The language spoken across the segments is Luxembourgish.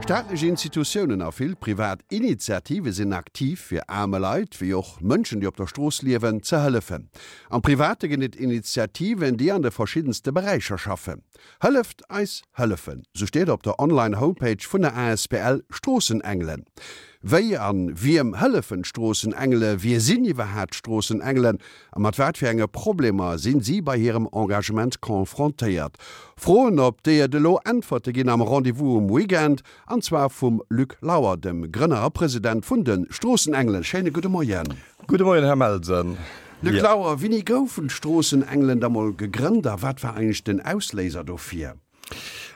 Staatlech Institutiounen a vill privat Initiative sinn aktiv, fir aarme Leit, wéi och Mënschen, déi op der Strooss liewen, ze hëllefen. Am Private ginn et Initiativen, déi an de verschiddenste Beräicher schaffen. Hëlleft eis hëllefen, sou steet op der Online Homepage vun der asbl Stroossenengelen. Wéi an wiem hëllefen d'Stroossenengele, wie sinn iwwerhaat d'Stroossenengelen a mat wat fir enge Problemer sinn si bei hirem Engagement confrontéiert? Froen op déi et elo Äntwerte ginn am Rendez-vous um Weekend, an zwar vum Luc Lauer, dem Grënner a President vun de Stroossenengelen. Schéine gudde Moien. Gudde Moien, Här Melsen. Luc Lauer, wéini goufen d'Stroossenengelen da mol gegrënnt a wat war eigentlech den Ausléiser dofir?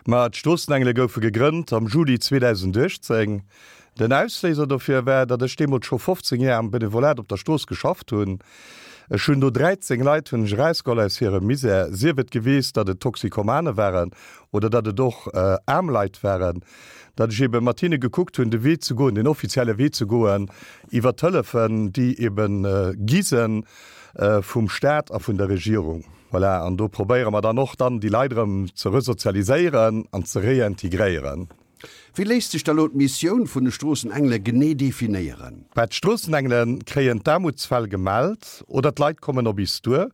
Ma d'Stroossenengele goufe gegrënnt am Juli 2018. Den Ausléiser dofir war, datt ech deemools scho 15 Jar am Benevolat op der Strooss geschafft hunn. Ech hunn do 13 Leit hunn ech erausgeholl aus hirem Misär, sief et geweest, datt et Toxikomane waren oder datt et och aarm Leit waren, datt ech ebe mat hinne gekuckt hunn, de Wee ze goen, den offizielle Wee ze goen iwwer d'Hëllefen, déi ebe gi se vum Staat a vun der Regierung. Voilà, an do probéiere mer dann och dann déi Leit erëm ze resozialiséieren an ze réintegréieren. Wéi léisst sech da lo d'Missioun vun de Stroossenengele genee definéieren? Bah, d'Stroossenengele kréien d'Aarmutsfäll gemellt oder d'Leit kommen op is duer.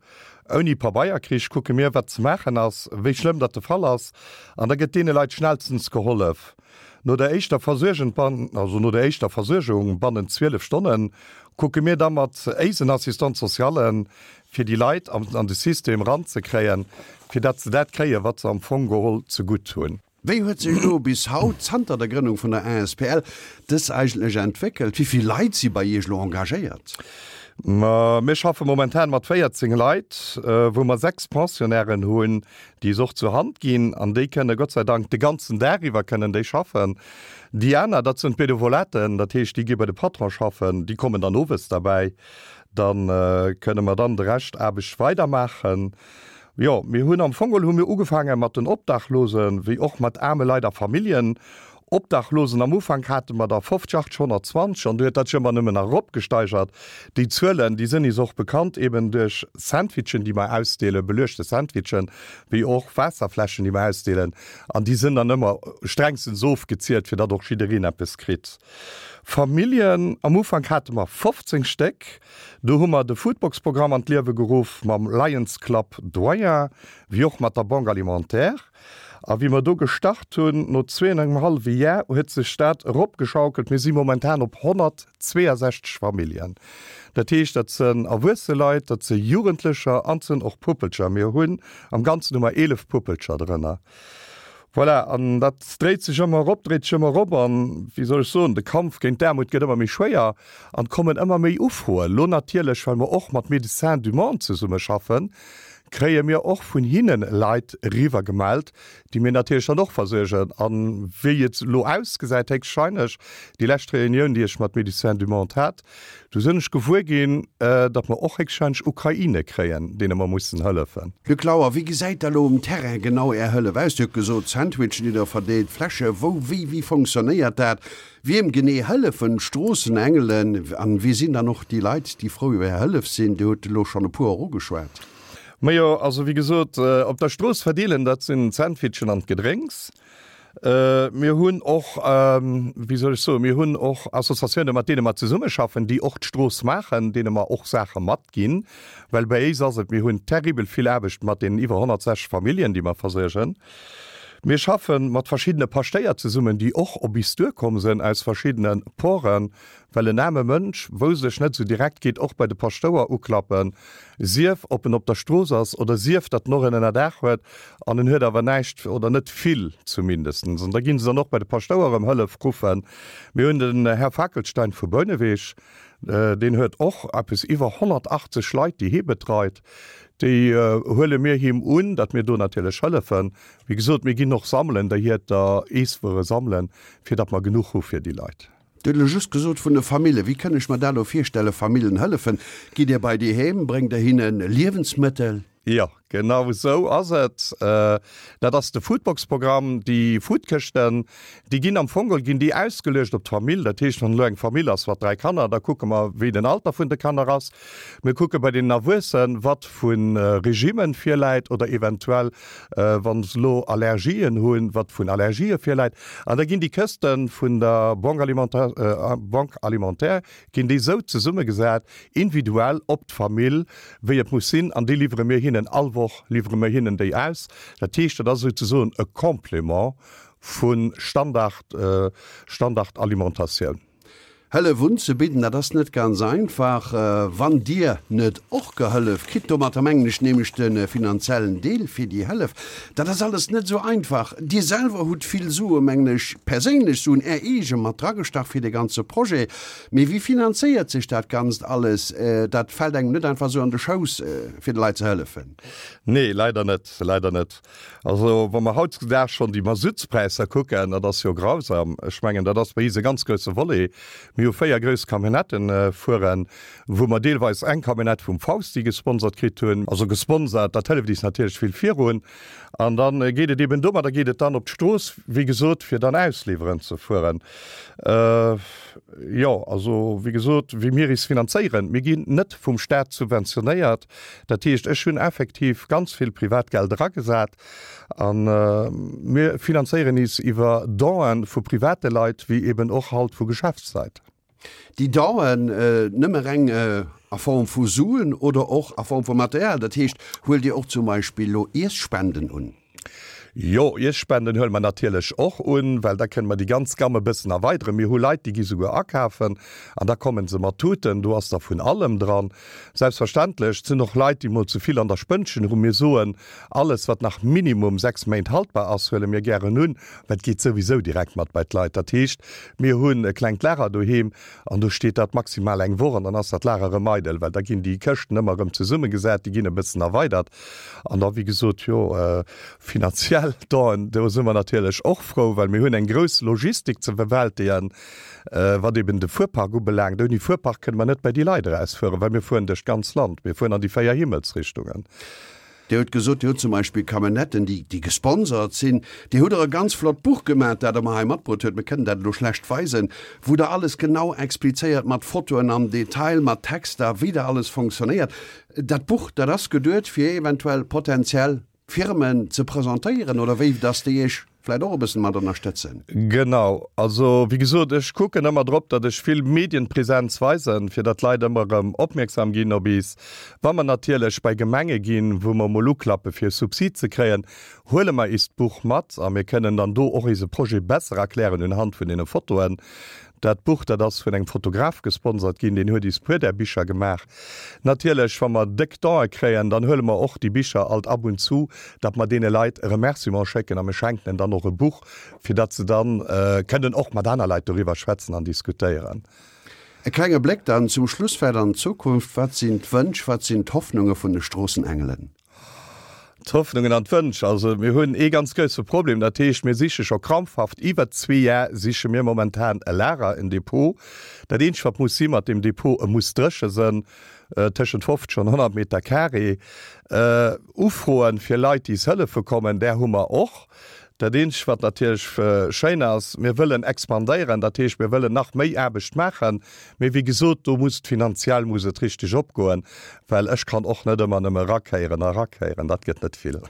Ouni Pabeierkrich kucke mir, wat ze maachen ass, wéi schlëmm datt de Fall ass, an da gëtt deene Leit schnellstens gehollef. No der éischter Versuergen, also no der éischter Versuergung bannent 12 Stonnen, kucke mir da mat éisen Assistants socialen, fir déi Leit an de System eranzekréien, fir datt se dat kréien, wat se am Fong geholl zegutt hunn. Wéi huet sech elo bis haut, zanter der Grënnung vun der asbl, dës eigentlech entwéckelt? Wéi vill Leit si bei Iech elo engagéiert? Ma mir schaffe momentan mat 14 Leit, wou mer 6 Pensionnairen hunn, déi es och zur Hand ginn an déi kënne Gott sei Dank de ganzen Dag iwwer kënnen déi schaffen. Déi aner, dat sinn d'Benevolaten, dat heescht déi gi bei de Patron schaffen, déi kommen dann owes derbäi. Da kënne mer dann de Rescht Aarbecht weidermaachen. Jo, mir hunn am Fong geholl hu mir ugefaange mat den Obdachlosen, wéi och mat aarme Leit a Familljen. Obdachlosen, am Ufank hate mer der 50, 80, 120 an du huet dat sech ëmmer nëmmen nach eropgesteigert. Déi Zuelen, déi sënn is och bekannt, eben duerch Sandwichen, déi mer ausdeelen, beluechte Sandwichen, wéi och Waasserfläschen, déi mer ausdeelen. An déi sënn dann ëmmer strengstens ofgezielt, fir datt och jiddereen eppes kritt. Familljen, am Ufank hate mer 15 Stéck. Do hu mer de Foodbox-Programm an d'Liewe geruff mam Lions Club Doyen, wéi och mat der Banque Alimentaire. A wéi mer do gestart hunn, no zwee an engem hallwe Jar, huet sech dat eropgeschaukelt. Mir si momentan op 162 Familljen. Dat heescht, dat sënn erwuesse Leit, dat si Jugendlecher an et sënn och Puppelcher. Mir hunn am Ganzen hu mer 11 Puppelcher drënner. Voilà, an dat dréit sech ëmmer erop, dréit sech ëmmer erop an, wéi soll ech soen, de Kampf géint d'Aarmut gëtt ëmmer méi schwéier an et kommen ëmmer méi Ufroen. Elo natierlech, well mer och mat Médecins du Monde zesummeschaffen, kréie mir och vun hinne Leit eriwwer gemellt, déi mir natierlech dann och versuergen. A wéi et elo ausgesäit, héchstwahrscheinlech, déi lescht Reunioun, déi ech mat Médecins du Monde hat, Du sinn ech gewuer ginn, datt mer och héchstwahrscheinlech Ukraine kréien, deene mer mussen hëllefen. Luc Lauer, Wéi gesäit da lo um Terrain genau Är Hëllef aus? Dir hutt gesot, Sandwichen, déi Der verdeelt, Fläsche, wou, wéi, wéi fonctionnéiert dat? Wiem genee hëllefen d'Stroossenengelen an wie sinn dann och déi Leit, déi frou iwwer Är Hëllef sinn? Dir hutt elo schonn e puer och ugeschwat. Majo, also wéi gesot, op der Strooss verdeelen, dat sinn d'Sandwichen an d'Gedrénks. Mir hunn och, wéi soll ech soen, mir hunn och Associatiounen, mat deene mer zesummeschaffen, déi och d'Strooss maachen, deene mer och Saache matginn. Well bei éis ass et, mir hunn terribel vill Aarbecht mat deenen iwwer 160 Familljen, déi mer versuergen. Mir schaffe mat verschiddene Paschtéier zesummen, déi och op is duerkomm sënn aus verschiddene Poren, Well en aarme Mënsch, wousst ech net esou direkt, geet och bei de Paschtouer uklappen, sief ob en op der Strooss ass oder sief datt en och en Ënnerdaach huet an en huet awer näischt oder net vill zumindestens. An da ginn se dann och bei de Paschtouer ëm Hëllef ruffen. Mir hunn den Här Fackelstein vu Bouneweg, deen huet och eppes iwwer 180 Leit, déi hie betreit. Déi huele mir him un, datt mir do natierlech hëllefen. Wéi gesot, mir ginn och sammelen, der Hierter Eesswuere sammelen, fir datt mer genuch hu fir déi Leit. Dir hutt elo just gesot vun de Famillen. Wéi kënn ech mer dat elo virstellen, Famillen hëllefen? Gitt Dir bei déi heem? Bréngt Der hinne Liewensmëttel? Jo, Genau esou ass et. Dat ass de Foodbox-Programm. Déi Foodkëschten, déi ginn am Fong geholl ginn déi ausgeluecht op d'Famill. Dat heescht, wann elo eng Famill ass mat 3 Kanner, da kucke mer, wéi den Alter vun de Kanner ass. Mir kucke bei deenen Erwuessen, wat vu Regimmen virläit oder eventuell, wa se elo Allergien hunn, wat vun Allergië virläit. An da ginn déi Këste vun der Banque alimentaire ginn déi esou zesummegesat, individuell op d'Famill, wéi et muss sinn, an déi liwwere mir hinnen all Woch, liwwere mir hinnen déi aus. Dat heescht, dat ass souzesoen e Complément vu Standard, Standardalimentatioun. Hëllef unzebidden, dat ass net ganz einfach, wann Dir net och gehëllef kritt. Domatter mengen ech nämlech de finanziellen Deel fir déi Hëllef. Dat ass alles net esou einfach. Dir selwer hutt vill Sue, mengen ech, perséinlech Suen, Är eege mat dragestach fir dee ganze Projet. Mee wéi finanzéiert sech dat Ganzt alles? Dat fält engem net einfach esou an de Schouss, fir de Leit ze hëllefen. Nee, leider net, leider net. Also wa mer hautdesdaags schonn déi Masuttspräisser kucken, dat ass jo grausam. Ech mengen, dat ass bei is e ganz grousse Volet. Mir hu 4 grouss Camionnetten fueren, wou mer deelweis eng Camionnette vum Fausti gesponsert kritt hunn. Also gesponsert, dat hëlleft is natierlech vill virun. An da geet et eben domadder geet et dann op d'Strooss, wéi gesot, fir dann ausliwweren ze fueren. Jo, also wéi gesot, wéi mir is finanzéieren, mir ginn net vum Staat subventionéiert. Dat heescht, ech hunn effektiv ganz vill Privatgeld eragesat a mir finanzéieren is iwwer Donen vu private Leit wéi eben och halt vu Geschäftsleit. Déi Donen nëmme reng a Form vu Suen oder och a Form vu Material? Dat heescht, huelt Dir och zum Beispill elo Iesspenden un? Jo, Iesspenden huele mer natierlech och un, well da kënne mer déi ganz Gamme e bëssen erweideren. Mir hu Leit, déi gi souguer akafen an da komme se mat Tuten, do ass da vun allem dran. Selbstverständlech, et sinn och Leit, déi mol ze vill an der Spënnchen hunn. Mir soen, alles wat nach minimum 6 Méint haltbar ass, huele mir gären un, well et geet souwisou direkt mat bei d'Leit. Dat heescht, mir hunn e klengt Lager doheem an do steet dat maximal eng Woch an dann ass dat Lager erëm eidel, well da ginn déi Këschten ëmmer erëm zesummegesat, déi ginn e bëssen erweidert. An da, wéi gesot, jo, finanziell Donen, do si mer natierlech och frou, well mir hunn eng grouss Logistik ze bewältegen, wat eben de Fuerpark ubelaangt. Ouni Fuerpark kënne mer net bei déi Leit erausfueren, well mir fueren duerch d'ganz Land, mir fueren an déi 4 Himmelsrichtungen. Dir hutt gesot, Dir hutt zum Beispill Camionnetten, déi, déi gesponsert sinn. Dir hutt och e ganz flott Buch gemaach, dat Der mer hei matbruet hutt, mir kënnen dat elo schlecht weisen, wou Der alles genau explizéiert mat Fotoen am Detail, mat Texter, wéi dat alles fonctionnéiert. Dat Buch, dat ass geduet, fir eventuell potenziell Firmen ze presentéieren, oder wéi, dass déi Iech vläicht och e bëssen mat ënnerstëtzen? Genau. Also, wéi gesot, ech kucken ëmmer drop, datt ech vill Medienpräsenz weisen, fir datt d'Leit ëmmer erëm opmierksam ginn op is. Wa mer natierlech bei Gemenge ginn, wou mer emol uklappe fir e Subsid ze kréien, huele mer is d'Buch mat a mir kënnen dann do och ise Projet besser erklären unhand vun deene Fotoen. Dat Buch, dat ass vun engem Fotograf gesponsert ginn, deen huet is puer där Bicher gemaach. Natierlech, wa mer déck Don'e kréien, dann huele mer och déi Bicher alt ab und zu, datt mer deene Leit e Remerciement schécken a mir schenken en dann och e Buch, fir datt se dann kënnen och mat aner Leit doriwwer schwätzen an diskutéieren. E klenge Bléck dann zum Schluss vläit an d'Zukunft, Wat sinn d'Wënsch, wat sinn d'Hoffnunge vun de Stroossenengelen? D'Hoffnungen an d'Wënsch, also mir hunn ee ganz grousse Problem, dat heescht mir siche scho krampfhaft, iwwer zwee Jar siche mir momentan e Lager, en Depot. Dat eenzegt wat muss si mat deem Depot, e muss dréche sënn, tëschent 50 an 100 Meter carré. Ufroen fir Leit déi s hëllefe kommen, där hu mer och. Dat eenzegt wat natierlech schéin ass, mir wëllen expandéieren, dat heescht mir wëllen nach méi Aarbecht maachen, mee wéi gesot, do muss et finanziell muss et richteg opgoen, well ech kann och net ëmmer nëmme erakéieren a erakéieren, dat gëtt net vill.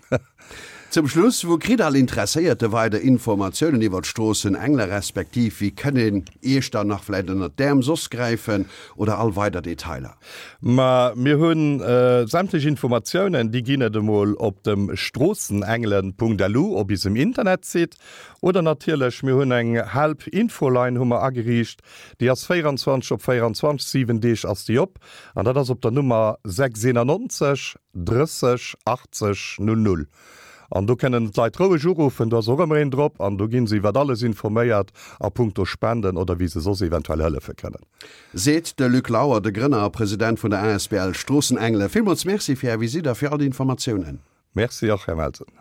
Zum Schluss, Wou kritt all Interesséierte weider Informatiounen iwwer d'Stroossen-Engler, respektiv wéi kënn een Iech dann nach vläicht ënnert d'Äerm soss gräifen oder all weider Detailer? Ma mir hu sämtlech Informatiounen, déi ginn et emol op dem stroossenengelen.lu op isem Internetsite oder natierlech mir hunn eng Help Infoline hu mer ageriicht, déi ass 24 op 24, 7 Deeg ass déi op an dat ass op der Nummer 691 30 80 00. An do kënnen d'Leit roueg uruffen, do ass och ëmmer een drop an do gi se iwwert alles informéiert a punkto Spenden oder wéi se soss eventuell hëllefe kënnen. Seet de Luc Lauer, de Grënner a President vun der asbl Stroossenengele. Villmools Merci fir Är Visitt a fir all déi Informatiounen. Merci och, Här Melsen.